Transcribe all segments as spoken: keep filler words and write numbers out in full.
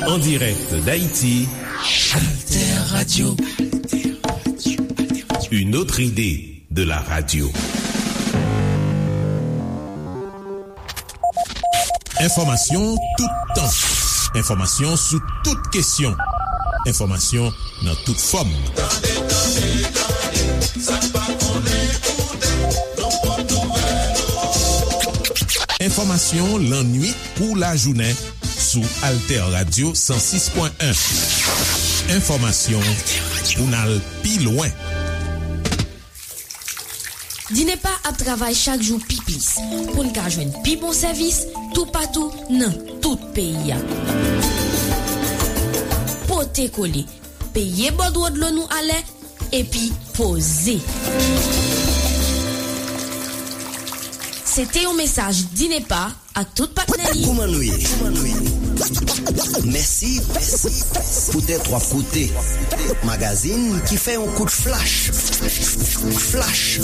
En direct d'Haïti, Alter Radio. Une autre idée de la radio. Enfòmasyon toutan. Enfòmasyon sou tout kesyon. Enfòmasyon nan tout fòm. Tande, tande, tande, sa k pa konnen koute, nou pot nouvèl. Enfòmasyon lannuit kou lajounen sou Alter Radio san sis pwen en. Enfòmasyon pou n al pi lwen. Dinepa ap travay chak jou pi plis pou n ka jwenn pi bon sèvis toupatou nan tout peyi a. Pote kole, peye bòdwo dlo nou alè, epi poze. Se te yon mesaj Dinepa ak tout patnè li. Kòman nou ye? Mèsi poutèt w ap koute magazin ki fè yon kout flach. Flach.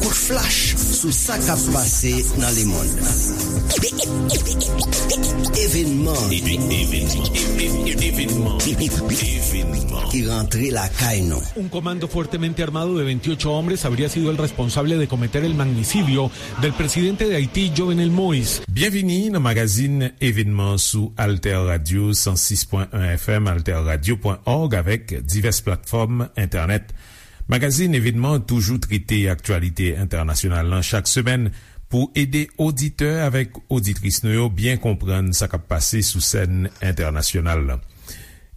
Kout flach sou sa k ap pase nan lemonn. Evenman. Evenman. Evenman. Evenman. Ki rantre lakay nou. Un comando fuertemente armado de veintiocho hombres habría sido el responsable de cometer el magnicidio del presidente de Haití, Jovenel Moïse. Byenvini nan magazin Evenman sou Alter Radio san sis pwen en F M, alter radio pwen org avèk divès platfòm entènèt. Magazin Evenman toujou trete aktyalite entènasyonal lan chak semèn pou ede oditè avèk oditris nou yo byen konprann sa k ap pase sou sèn entènasyonal lan.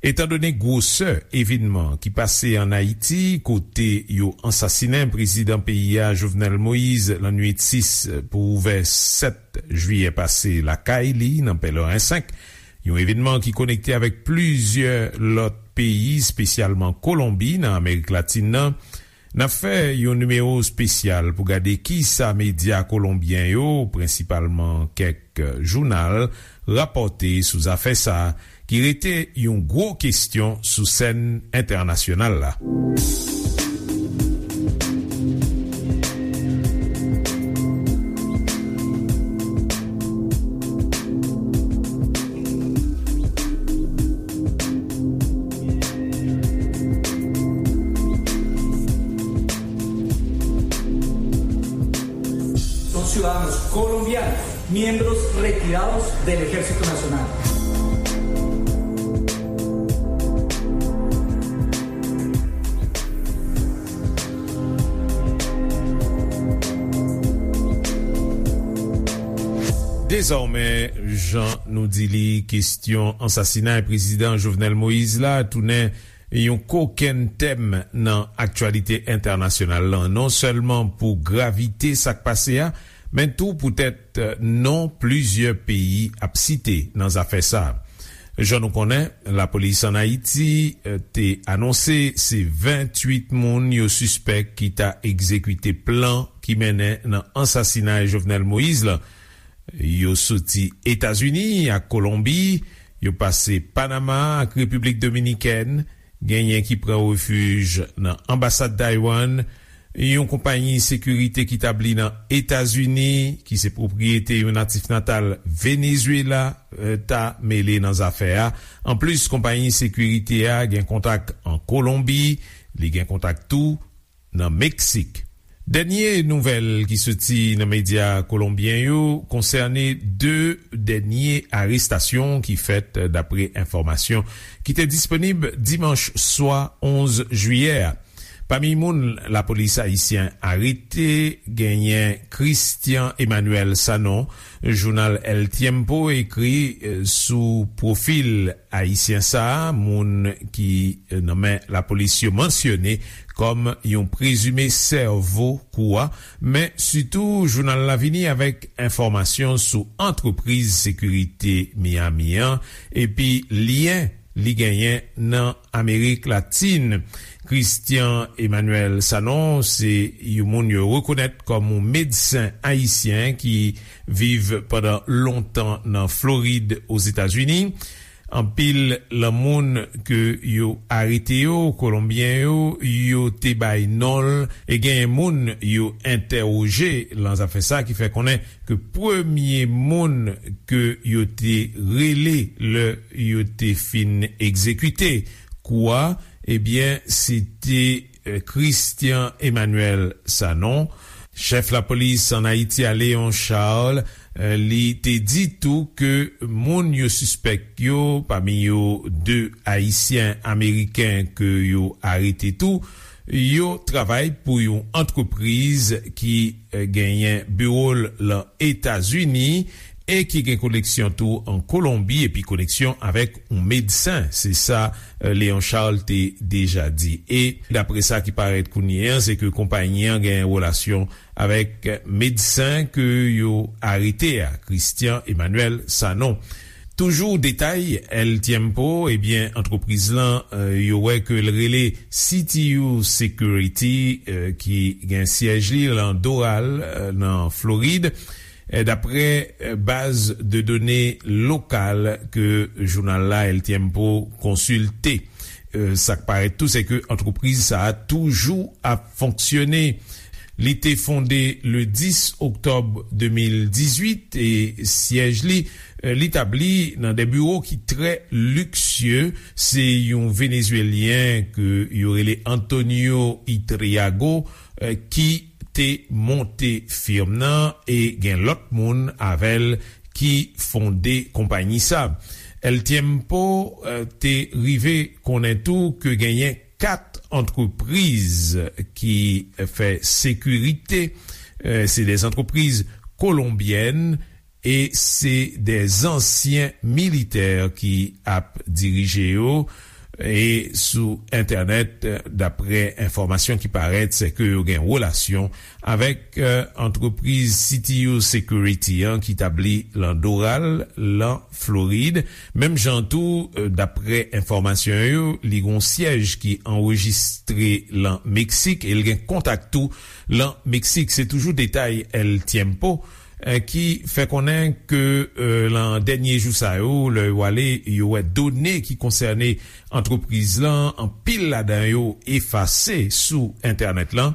Etandone gwosè evenman ki pase ann Ayiti, kote yo ansasinen prezidan peyi a, Jovenel Moïse, lannuit sis pou ouvè sèt jiyè pase lakay li nan Pèleren senk, yon evenman ki konekte avèk plizyè lòt peyi, espesyalman Kolonbi nan Amerik Latin nan, n ap fè yon nimewo espesyal pou gade kisa medya kolonbyen yo, prensipalman kèk jounal, rapòte sou zafè sa a, ki rete yon gwo kesyon sou sèn entènasyonal la. Son ciudadanos colombianos, miembros retirados del Ejército Nacional. Dezòmè, jan nou di li, kesyon ansasinay prezidan Jovenel Moïse la tounen yon kokenn tèm nan aktyalite entènasyonal lan, non sèlman pou gravite sa k pase a, men tou poutèt non plizyè peyi ap site nan zafè sa a. Jan nou konnen, lapolis ann Ayiti, eh, te anonse se venntuit moun yo sispèk ki ta egzekite plan ki mennen nan ansasinay Jovenel Moïse lan. Yo soti Etazini ak Kolonbi, yo pase Panama ak Repiblik Dominikèn, genyen ki pran refij nan anbasad Taiwan, yon konpayi sekirite ki tabli nan Etazini, ki se pwopriyete yon natif natal Venezuela, eh, ta mele nan zafè a. Anplis, konpayi sekirite a gen kontak an Kolonbi, li gen kontak tou nan Meksik. Dènye nouvèl ki soti nan medya kolonbyen yo konsène de dènye arestasyon ki fèt, dapre enfòmasyon ki te disponib dimanch swa onz jiyè a. Pami moun lapolis ayisyen arete, genyen Christian Emmanuel Sanon. Jounal El Tiempo ekri, eh, sou pwofil ayisyen sa a, moun ki, eh, nan men lapolis yo mansyone kòm yon prezime sèvo kou a, men sitou jounal la vini avèk enfòmasyon sou antrepriz sekirite Miami an, epi lyen li genyen nan Amerik Latin. Christian Emmanuel Sanon se yon moun yo rekonèt kòm yon medsen ayisyen ki viv pandan lontan nan Florid, Ozetazini. Anpil lan moun ke yo arete yo, Kolonbyen yo, yo te bay non l, e genyen moun yo entèwoje lan zafè sa ki fè konnen ke premye moun ke yo te rele lè yo te fin egzekite kou a, ebyen, se te, eh, Christian Emmanuel Sanon. Chèf lapolis ann Ayiti a, Léon Charles, eh, li te di tou ke moun yo sispèk yo, pami yo de Ayisyen Ameriken ke yo arete tou, yo travay pou yon antrepriz ki, eh, genyen biwo l lan Etazini e ki gen koneksyon tou an Kolonbi epi koneksyon avèk yon medsen. Se sa, eh, Léon Charles te deja di. E dapre sa ki parèt kounye a, se ke konpayi an gen relasyon avèk medsen ke yo arete a, Christian Emmanuel Sanon. Toujou detay El Tiempo, ebyen, antrepriz lan, eh, yo wè ke l rele C T U Security, eh, ki gen syèj li lan Doral, eh, nan Florid. Eh, dapre, eh, baz de done lokal ke jounal la, El Tiempo, konsilte. Eh, sa k parèt tou, se ke antrepriz sa a toujou ap fonksyone. Li te fonde le dis oktòb de mil dizuit e syèj li, eh, li tabli nan de biwo ki trè liksye. Se yon Venezuelyen ke yo rele Antonio Itriago, eh, ki te monte firm nan e gen lòt moun avè l ki fonde konpayi sa. El Tiempo, eh, te rive konnen tou ke genyen kat antrepriz ki fè sekirite. Eh, se de antrepriz kolonbyèn e se de ansyen militè ki ap dirije yo. E sou entènèt, eh, dapre enfòmasyon ki parèt, se ke yo gen relasyon avèk, eh, antrepriz C T U Security an ki tabli lan Doral, lan Florid. Menm jan tou, eh, dapre enfòmasyon yo, li gon syèj ki anrejistre lan Meksik e l gen kontak tou lan Meksik. Se toujou detay El Tiempo, eh, ki fè konnen ke, eh, lan dènye jou sa yo, lè yo ale, yo wè done ki konsène antrepriz lan, anpil ladan yo efase sou entènèt lan,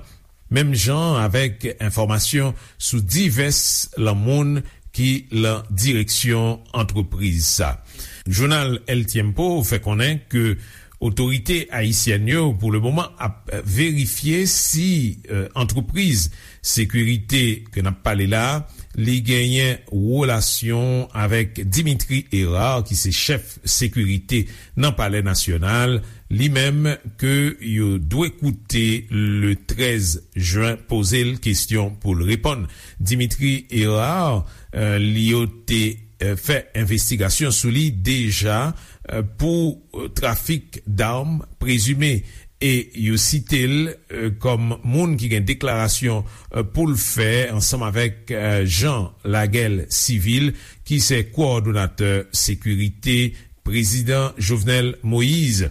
menm jan avèk enfòmasyon sou divès lan moun ki lan direksyon antrepriz sa. Jounal El Tiempo fè konnen ke otorite ayisyèn yo, pou le moman, ap verifye si, eh, antrepriz sekirite ke n ap pale la, li genyen relasyon avèk Dimitri Hérard, ki se chèf sekirite nan Palè Nasyonal, li menm ke yo dwe koute le trèz jen, poze l kesyon pou l reponn. Dimitri Hérard, eh, li yo te, eh, fè envestigasyon sou li deja, eh, pou, eh, trafik dam prezime. E yo site l, eh, kòm moun ki gen deklarasyon, eh, pou l fè ansanm avèk, eh, Jean Laguel Civil, ki se kowòdonatè sekirite Prezidan Jovenel Moïse.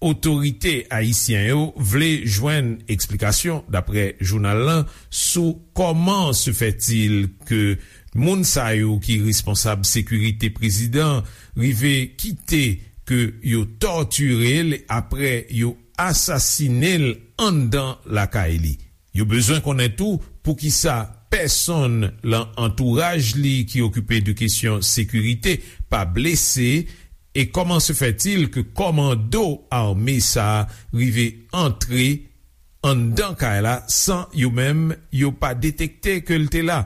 Otorite ayisyen yo vle jwenn eksplikasyon, dapre jounal lan, sou comment se fait-il ke moun sa yo ki responsab sekirite prezidan rive kite ke yo tòtire l apre yo asasine l anndan lakay li. Yo bezwen konnen tou poukisa pèsonn lan antouraj li ki okipe de kesyon sekirite pa blese, e comment se fait-il ke kòmando ame sa a rive antre anndan kay la san yo menm yo pa detekte ke l te la.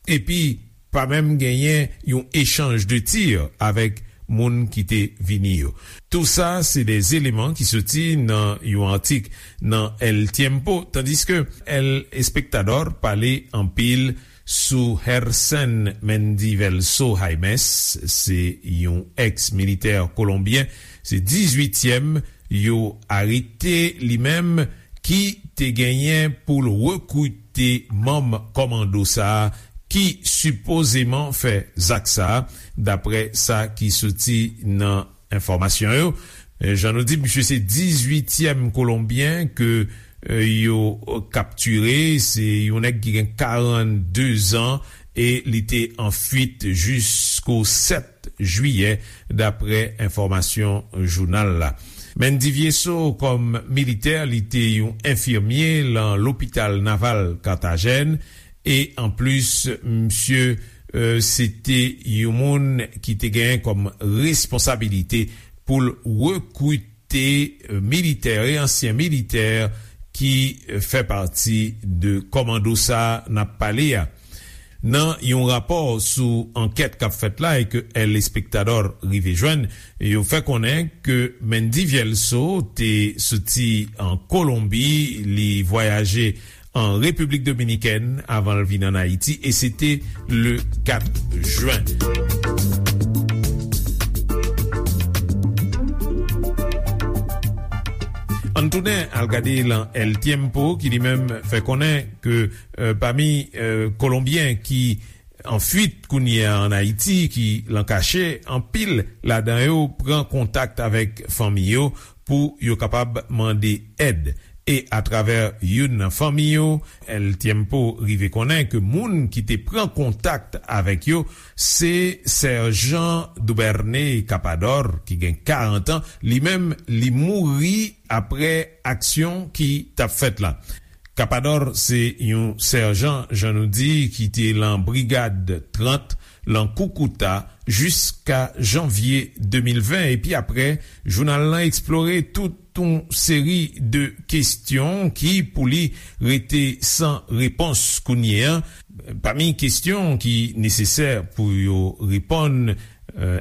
Epi, pa menm genyen yon echanj de tir avèk moun ki te vini yo. Tou sa, se de eleman ki soti nan yon atik nan El Tiempo, tandiske El Espectador pale anpil sou Hersen Mendivelso Jaimes, se yon eks-militè kolonbyen, se dizuityèm yo arete li menm, ki te genyen pou l rekrite manm kòmando sa a ki sipozeman fè zak sa a, dapre sa ki soti nan enfòmasyon yo. Eh, jan nou di, misye se dizuityèm kolonbyen ke, eh, yo kaptire. Se yon nèg ki gen karannde zan e li te an fuit jis jisko sèt jiyè, dapre enfòmasyon jounal la. Mendy Viesso, kòm militè, li te yon enfimye lan lopital naval Carthagène, e anplis, misye, e, se te yon moun ki te genyen kòm responsabilite pou l rekrite, e, militè e ansyen militè ki, e, fè pati de kòmando sa a n ap pale a. Nan yon rapò sou ankèt k ap fèt la e ke El Espectador rive jwenn, yo fè konnen ke Mendy Viesso te soti an Kolonbi, li vwayaje an Repiblik Dominikèn avan l vin ann Ayiti, e se te le kat jen. Ann tounen al gade lan El Tiempo, ki li menm fè konnen ke, e, pami, e, Kolonbyen ki an fuit kounye a ann Ayiti, ki lan kache, anpil ladan yo pran kontak avèk fanmi yo pou yo kapab mande èd. E atravè youn nan fanmi yo, El Tiempo rive konnen ke moun ki te pran kontak avèk yo, se Sèjan Dubernay Capador, ki gen karant an, li menm li mouri apre aksyon ki t ap fèt la. Capador se yon sèjan, jan nou di, ki te lan brigad trant, lan Koukouta, jiska janvye de mil ven, epi apre, jounal lan eksplore tout yon seri de kesyon ki, pou li, rete san repons kounye a. Pami kesyon ki nesesè pou yo reponn, e,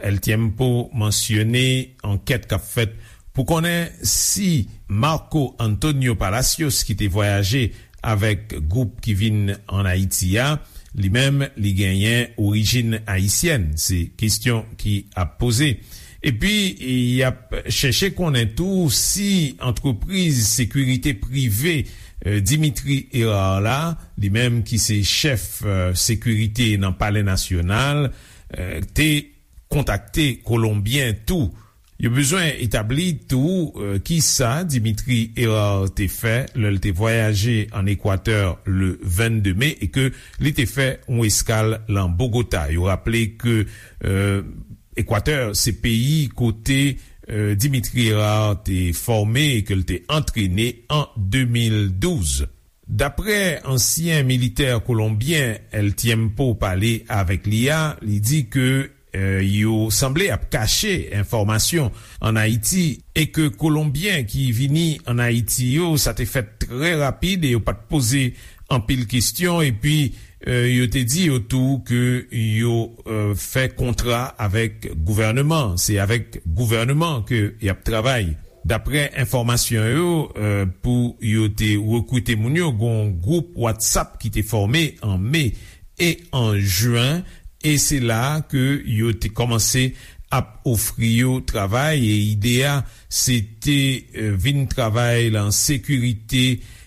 El Tiempo mansyone ankèt k ap fèt pou konnen si Marco Antonio Palacios, ki te vwayaje avèk gwoup ki vin ann Ayiti a, li menm, li genyen orijin ayisyèn. Se kesyon ki ap poze. Epi, y ap chèche konnen tou si antrepriz sekirite prive, e, Dimitri Hérard la, li menm ki se chèf, e, sekirite nan Palè Nasyonal, e, te kontakte Kolonbyen tou. Yo bezwen etabli tou, e, kisa Dimitri Hérard te fè lè l te vwayaje ann Ekwatè le vennde me e ke li te fè yon eskal lan Bogota. Yo raple ke, e, Ekwatè se peyi kote, e, Dimitri Hérard te fòme e ke l te antrene an de mil douz. Daprè ansyen militè kolonbyen El Tiempo pale avèk li a, li di ke, e, yo sanble ap kache enfòmasyon ann Ayiti e ke Kolonbyen ki vini ann Ayiti yo, sa te fèt trè rapid e yo pa t poze anpil kesyon, epi, e, yo te di yo tou ke yo, e, fè kontra avèk gouvèneman, se avèk gouvèneman ke y ap travay. Daprè enfòmasyon yo, e, pou yo te rekrite moun yo, gen yon gwoup WhatsApp ki te fòme an me e an jen, e se la ke yo te kòmanse ap ofri yo travay, e ide a, se te, e, vin travay lan sekirite,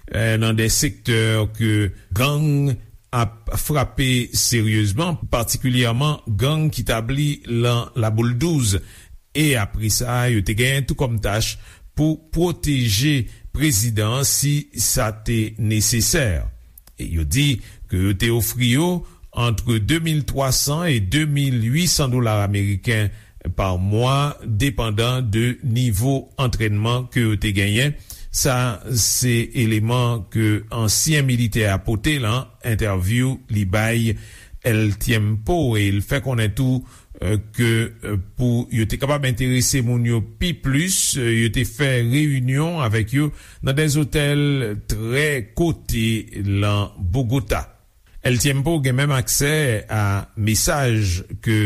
e, nan de sektè ke gang ap frape seryezman, patikilyèman gang ki tabli lan Laboul douz. E apre sa, yo te genyen tou kòm tach pou pwoteje prezidan an si sa te nesesè. E yo di ke yo te ofri yo antre de mil twa san e de mil uit san dola ameriken pa mwa, depandan de nivo antrènman ke yo te genyen. Sa se eleman ke ansyen militè a pote lan entèvyou li bay El Tiempo, e l fè konnen tou, e, ke, e, pou yo te kapab enterese moun yo pi plis, e, yo te fè reyinyon avèk yo nan de zotèl trè kote lan Bogota. El Tiempo gen menm aksè a mesaj ke,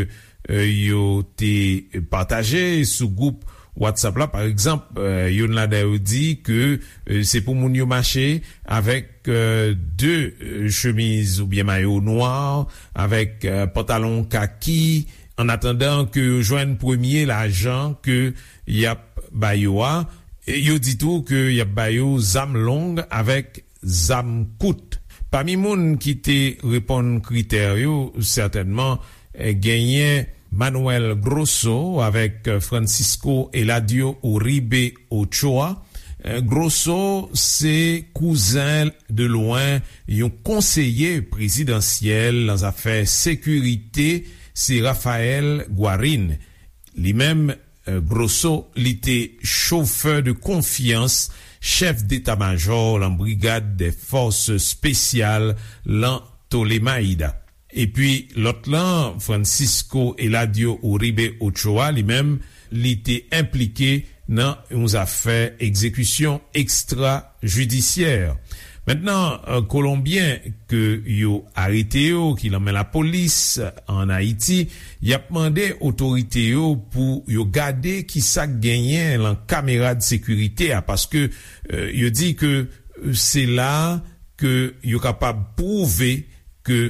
e, yo te pataje sou gwoup WhatsApp la. Pa egzanp, e, youn ladan yo di ke, e, se pou moun yo mache avèk, e, de, e, chemiz oubyen mayo nwa, avèk, e, pantalon kaki, an atandan ke yo jwenn premye lajan ke y ap ba yo a. E yo di tou ke y ap ba yo zam long avèk zam kout. Pami moun ki te reponn kritè yo, sètènman, e, genyen Manuel Grosso avèk Francisco Eladio Uribe Ochoa. E, Grosso se kouzen de lwen yon konseye prezidansyèl nan zafè sekirite se Rafael Guarin. Li menm, Grosso, li te chofè de konfyans chèf deta majò lan Brigad dè Fòs Espesyal lan Tolemaida. Epi lòt lan, Francisco Eladio Uribe Ochoa, li menm, li te enplike nan yon zafè egzekisyon ekstra jidisyè. Mentnan, Kolonbyen ke yo arete yo, ki lan men lapolis an Ayiti, y ap mande otorite yo pou yo gade ki sa k genyen lan kamera de sekirite a, paske yo di ke se la ke yo kapab pwouve ke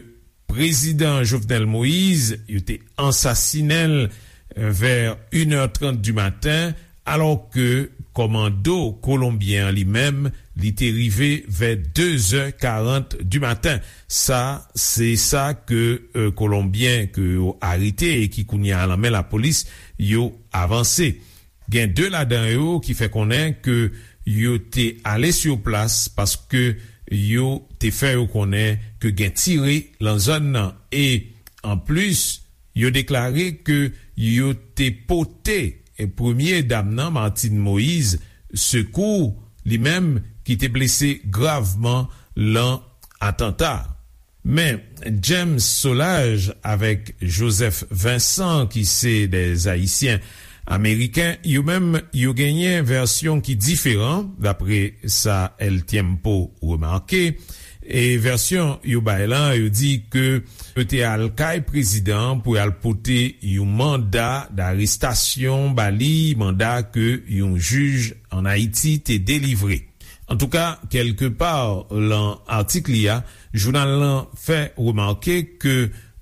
Prezidan Jovenel Moïse, yo te ansasinen l vè inè trant di maten, alò ke kòmando kolonbyen an li menm, li te rive vè dezè karant di maten. Sa, se sa ke Kolonbyen ke yo arete e ki kounye a lan men lapolis, yo avanse. Gen de ladan yo ki fè konnen ke yo te ale sou plas paske yo te fè yo konnen ke gen tire lan zòn nan. E anplis, yo deklare ke yo te pote premye dam nan, Martine Moïse, sekou, li menm ki te blese gravman lan atanta. Men James Solages avèk Joseph Vincent, ki se de Ayisyen Ameriken, yo menm, yo genyen vèsyon ki diferan, dapre sa El Tiempo remake. E vèsyon yo bay lan, yo di ke yo te al kay prezidan pou y al pote yon manda darestasyon ba li, manda ke yon jij an Ayiti te delivre. Antouka, kèlkepa lan atik li a, jounal lan fè remake ke,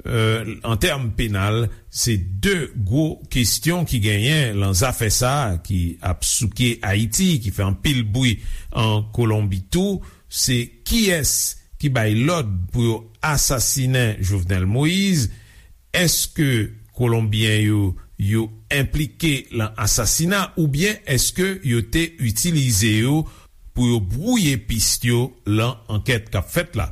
an tèm penal, se de gwo kesyon ki genyen lan zafè sa a ki ap souke Ayiti, ki fè anpil bri an Kolonbi tou, se kiyès ki bay lòd pou yo asasinen Jovenel Moïse, èske Kolonbyen yo, yo enplike lan asasina oubyen èske yo te itilize yo pou yo bwouye pis yo lan ankèt k ap fèt la?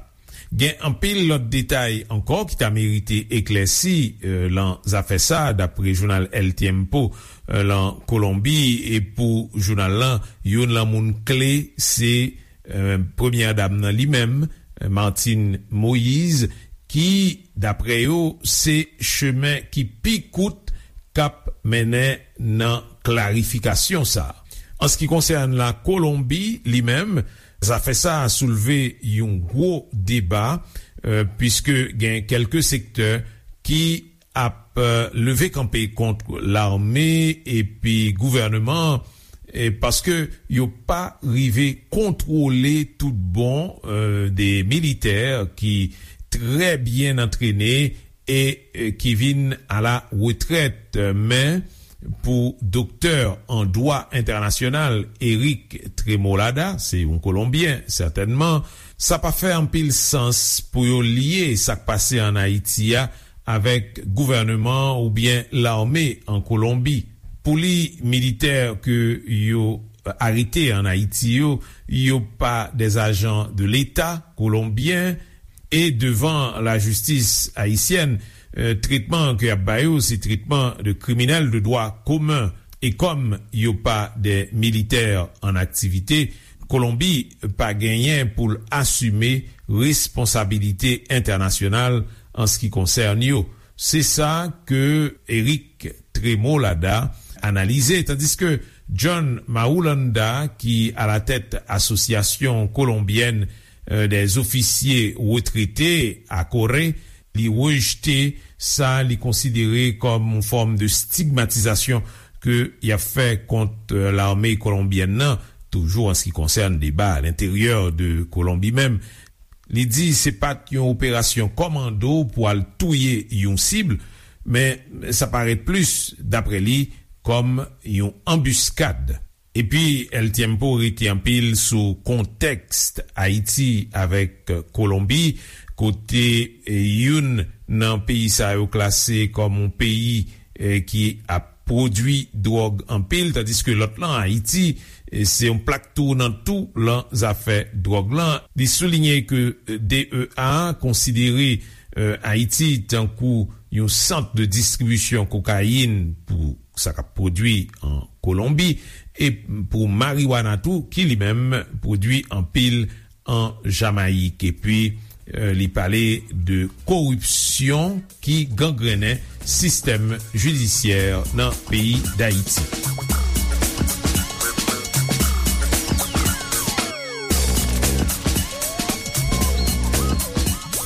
Gen anpil lòt detay ankò ki ta merite eklèsi, e, lan zafè sa a, dapre jounal El Tiempo, e, lan Kolonbi, e pou jounal lan, youn lan moun kle se, e, premyè dam nan li menm, e, Martine Moïse, ki, dapre yo, se chemen ki pi kout k ap mennen nan klarifikasyon sa a. An se ki konsène la Kolonbi, li menm, zafè sa a soulve yon gwo deba, e, piske gen kèlke sektè ki ap, e, leve kanpe kont lame epi gouvènman, e, paske yo pa rive kontwole tout bon, e, de militè ki trè byen antrene e, e, ki vin a la retrèt. Men, pou doktè an dwa entènasyonal Eric Tremolada, se yon Kolonbyen, sètènman, sa pa fè anpil sans pou yo lye sa k pase an Ayiti a avèk gouvènman oubyen lame an Kolonbi. Pou li, militè ke yo arete an Ayiti yo, yo pa de ajan de Leta kolonbyen, e devan lajistis ayisyèn, e, tretman ke y ap ba yo, se tretman de kriminèl de dwa komen. E kòm yo pa de militè an aktivite, Kolonbi pa genyen pou l asime responsabilite entènasyonal an se ki konsène yo. Se sa ke Eric Tremolada analize, tandiske John Marulanda, ki a la tèt Asosyasyon Kolonbyèn, e, dè Zofisye Retrete, ACORE, li rejte sa li konsidere kòm yon fòm de stigmatizasyon ke y ap fè kont, e, lame kolonbyèn nan, toujou an se ki konsène deba a lenteryè de Kolonbi menm. Li di se pa t yon operasyon kòmando pou al touye yon sib, men sa parèt plis, dapre li, kòm yon anbiskad. Epi, El Tiempo rete anpil sou kontèks Ayiti avèk Kolonbi, kote, e, youn nan peyi sa yo klase kòm yon peyi, e, ki ap pwodui dwòg anpil, tandiske lòt lan, Ayiti, e, se yon plak tounan tou lan zafè dwòg lan. Li soulinye ke, e, D E A konsidere, eh, Ayiti tankou yon sant de distribisyon kokayin pou sa k ap pwodui an Kolonbi, e pou mariwana tou, ki li menm pwodui anpil an Jamayik. Epi, eh, li pale de koripsyon ki gangrennen sistèm jidisyè nan peyi Dayiti.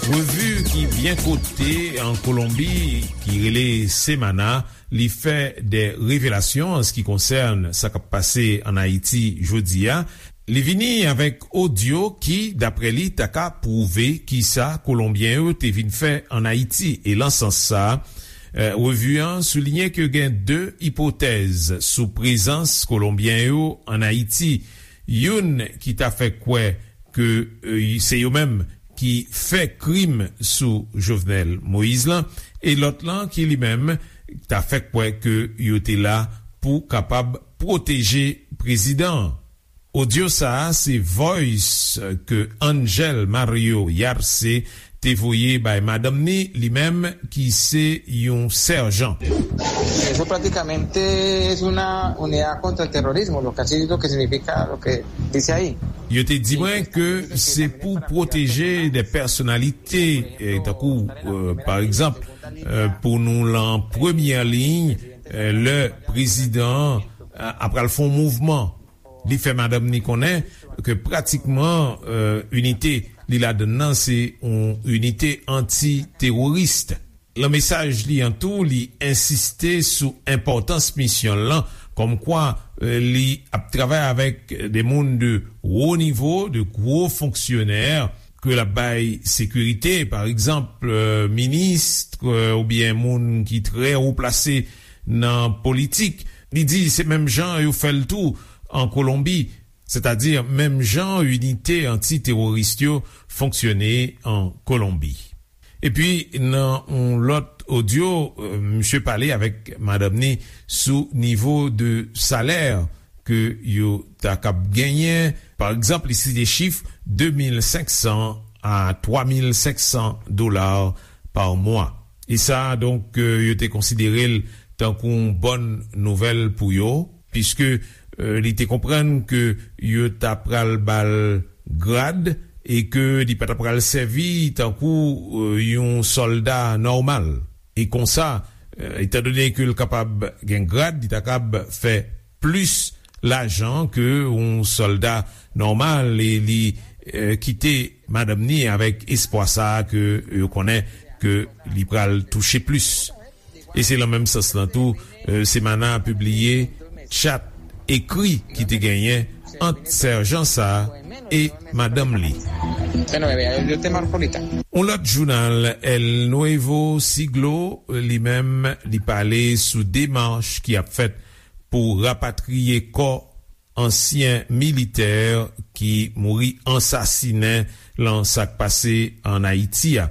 Revi ki byen kote an Kolonbi, ki rele Semana, li fè de revelasyon an se ki konsène sa k ap pase an Ayiti jodi a. Li vini avèk odyo ki, daprè li, ta ka pwouve kisa Kolonbyen yo te vin fè an Ayiti. E lan sans sa, eh, revi an souliyen ke gen de ipotèz sou prezans Kolonbyen yo an Ayiti. Youn ki ta fè kwè ke, eh, se yo menm ki fè krim sou Jovenel Moïse lan, e lòt lan ki li menm ta fè kwè ke yo te la pou kapab pwoteje prezidan an. Odyo sa a se voice ke Angel Mario Yarce te voye bay madanm ni, li menm ki se yon sèjan. Eso prácticamente es una unidad contra el terrorismo, lo que así lo que significa lo que dice ahí. Yo te di mwen ke se pou pwoteje de pèsonalite, eh, tankou, eh, pa egzanp, eh, pou nou lan premyè liy, eh, lè prezidan an, eh, ap pral fè yon mouvman. Li fè madanm ni konnen ke pratikman, eh, inite li ladann nan se yon inite anti-teworis. Lan mesaj li an tou, li ensiste sou enpòtans misyon l lan, kòmkwa, eh, li ap travay avèk de moun de wo nivo, de gwo fonksyonè, ke l ap bay sekirite, pa egzanp, eh, minis, eh, oubyen moun ki trè wo plase nan politik. Li di se menm jan yo fè l tou an Kolonbi, sètadi menm jan inite anti-teworis yo fonksyone an Kolonbi. Epi, nan yon lòt odyo, eh, misye pale avèk madanm ni sou nivo de salè ke yo ta kab genyen. Pa egzanp, li site chif de mil senk san a twa mil senk san dola pa mwa. E sa, donk, eh, yo te konsidere l tankou yon bòn nouvèl pou yo, piske, eh, li te konprann ke yo ta pral ba l grad e ke li pa ta pral sèvi tankou, eh, yon sòlda nòmal. E konsa, eh, etandone ke l kapab gen grad, li ta kab fè plis lajan ke yon sòlda nòmal e li, eh, kite madanm ni avèk espwa sa a ke yo konnen ke li pral touche plis. E se lan menm sans lan tou, eh, Semana pibliye chat ekri ki te genyen ant sèjan sa a e madanm li. Yon lòt jounal, El Nuevo Siglo, li menm, li pale sou demach ki ap fèt pou rapatriye kò ansyen militè ki mouri ansasinen lan sa k pase ann Ayiti a.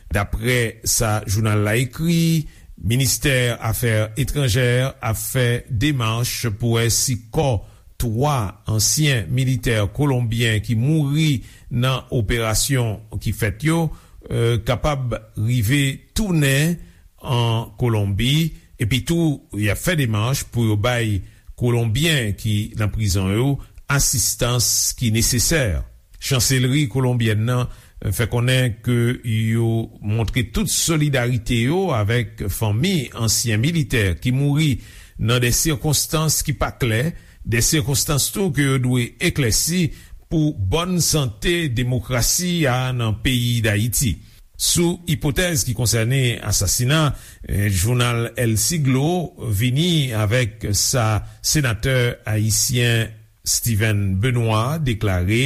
Daprè sa jounal la ekri, Ministè Afè Etranjè ap fè demach pou wè si kò twa ansyen militè kolonbyen ki mouri nan operasyon ki fèt yo, eh, kapab rive tounen an Kolonbi, epi tou y ap fè demach pou yo bay Kolonbyen ki nan prizon yo asistans ki nesesè. Chanselri kolonbyèn nan fè konnen ke yo montre tout solidarite yo avèk fanmi ansyen militè ki mouri nan de sikonstans ki pa klè, de sikonstans tou ke yo dwe eklèsi pou bòn sante demokrasi a nan peyi Dayiti. Sou ipotèz ki konsène asasina, eh, jounal El Siglo vini avèk sa senatè ayisyen Steven Benoît deklare,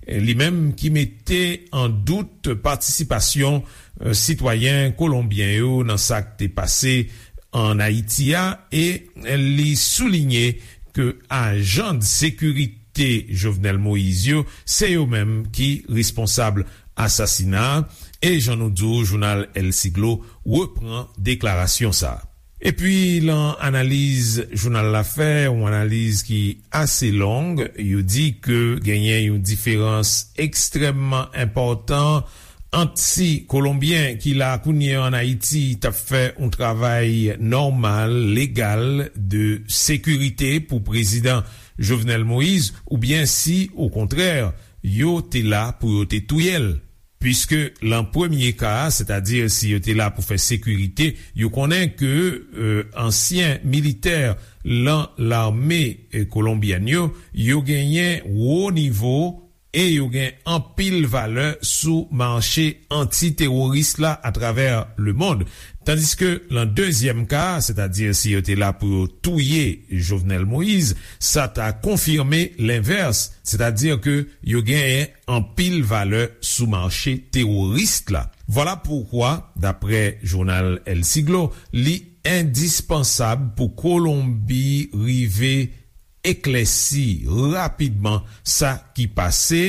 eh, li menm ki mete an dout patisipasyon, eh, sitwayen kolonbyen yo nan sa k te pase ann Ayiti a, e li soulinye ke ajan de sekirite Jovenel Moïse yo, se yo menm ki responsab asasina a, e jan nou di w, jounal El Siglo repran deklarasyon sa a. Epi, lan analiz jounal la fè, yon analiz ki ase long, yo di ke genyen yon diferans ekstrèmman enpòtan ant si Kolonbyen ki la kounye a ann Ayiti t ap fè yon travay nòmal, legal, de sekirite pou prezidan Jovenel Moïse, oubyen si, okontrè, yo te la pou yo te touye l. Piske lan premye ka a, sètadi si yo te la pou fè sekirite, yo konnen ke, e, ansyen militè lan lame, e, kolonbyèn yo, yo genyen wo nivo e yo gen anpil valè sou mache anti-teworis la atravè lemonn. Tandiske lan dezyèm ka a, sètadi si yo te la pou yo touye Jovenel Moïse, sa ta konfime lenvès, sètadi ke yo genyen anpil valè sou mache teworis la. Vwala poukwa, daprè jounal El Siglo, li endispansab pou Kolonbi rive eklèsi rapidman sa ki pase,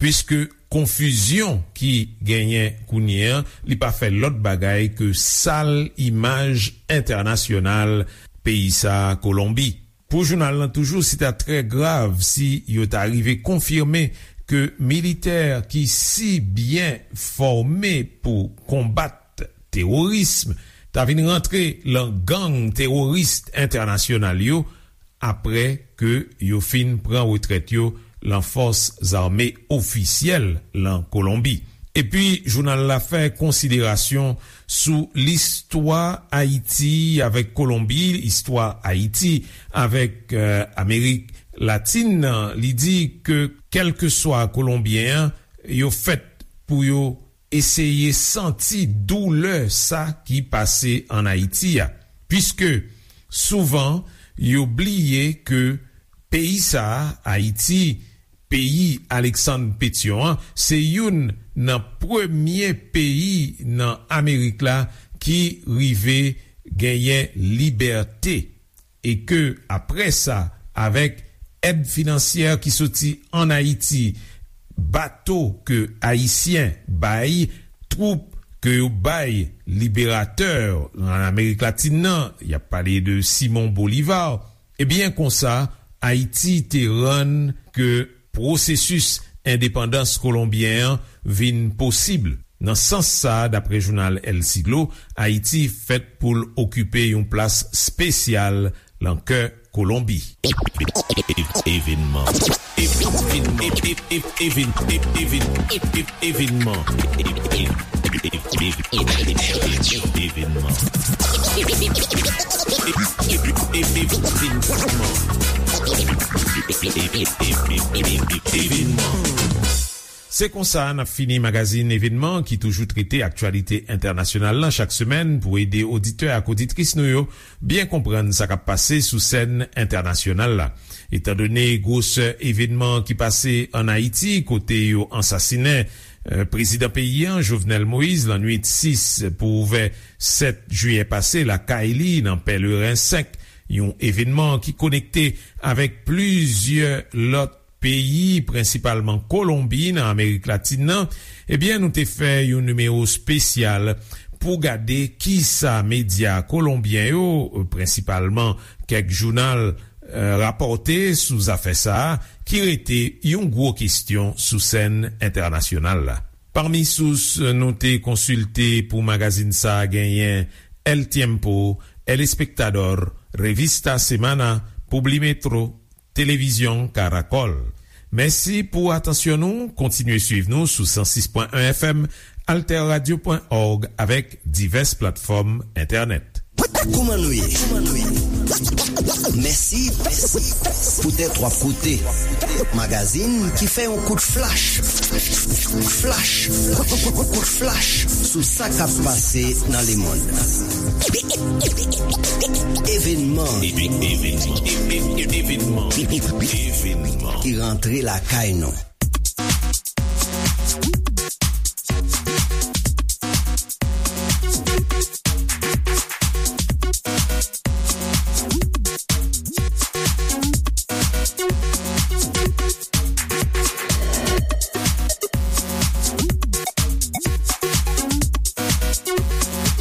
piske konfizyon ki genyen kounye a, li pa fè lòt bagay ke sal imaj entènasyonal peyi sa a, Kolonbi. Pou jounal lan toujou, se ta trè grav si yo ta rive konfime ke militè ki si byen fòme pou konbat teworism ta vin rantre lan gang teworis entènasyonal yo, apre ke yo fin pran retrèt yo lan fòs zame ofisyèl lan Kolonbi. Epi, jounal la fè konsiderasyon sou listwa Ayiti avèk Kolonbi, istwa Ayiti avèk, e, Amerik Latin nan. Li di ke kèlkeswa Kolonbyen an, yo fèt pou yo eseye santi doulè sa ki pase ann Ayiti a, piske souvan yo bliye ke peyi sa a, Ayiti, peyi Aleksann Petyon an, se youn nan premye peyi nan Amerik la ki rive genyen libète, e ke, apre sa, avèk èd finansyè ki soti ann Ayiti, bato ke Ayisyen bay, twoup ke yo bay liberatè ann Amerik Latin nan, y ap pale de Simon Bolivar, ebyen, konsa, Ayiti te rann ke pwosesis endepandans kolonbyen an vin posib. Nan sans sa a, daprè jounal El Siglo, Ayiti fèt pou l okipe yon plas espesyal lan kè Kolonbi. Evenman. Evenman. Evenman. Evenman. Se konsa n ap fini magazin Evenman ki toujou trete aktyalite entènasyonal lan chak semèn pou ede oditè ak oditris nou yo byen konprann sa k ap pase sou sèn entènasyonal la. Etandone gwosè evenman ki pase ann Ayiti, kote yo ansasinen, e, prezidan peyi a, Jovenel Moïse, lannwit sis pou ouvè sèt jiyè pase, lakay li nan Pèleren senk, yon evenman ki konekte avèk plizyè lòt peyi, prensipalman Kolonbi, nan Amerik Latin nan, ebyen, nou te fè yon nimewo espesyal pou gade kisa medya kolonbyen yo, prensipalman kèk jounal, e, rapòte sou zafè sa a, ki rete yon gwo kesyon sou sèn entènasyonal la. Pami sous nou te konsilte pou magazin sa a genyen El Tiempo, El Espectador, Revista Semana, Publimetro, Televizyon Caracol. Mèsi pou atansyon nou. Kontinye swiv nou sou san sis pwen en F M, alterradio pwen org avèk divès platfòm entènèt. Kouman nou ye? Mèsi poutèt w ap koute magazin ki fè yon kout flach, flach, kout flach sou sa k ap pase nan lemonn. Evenman. Evenman. Evenman. Evenman. Ki rantre lakay nou.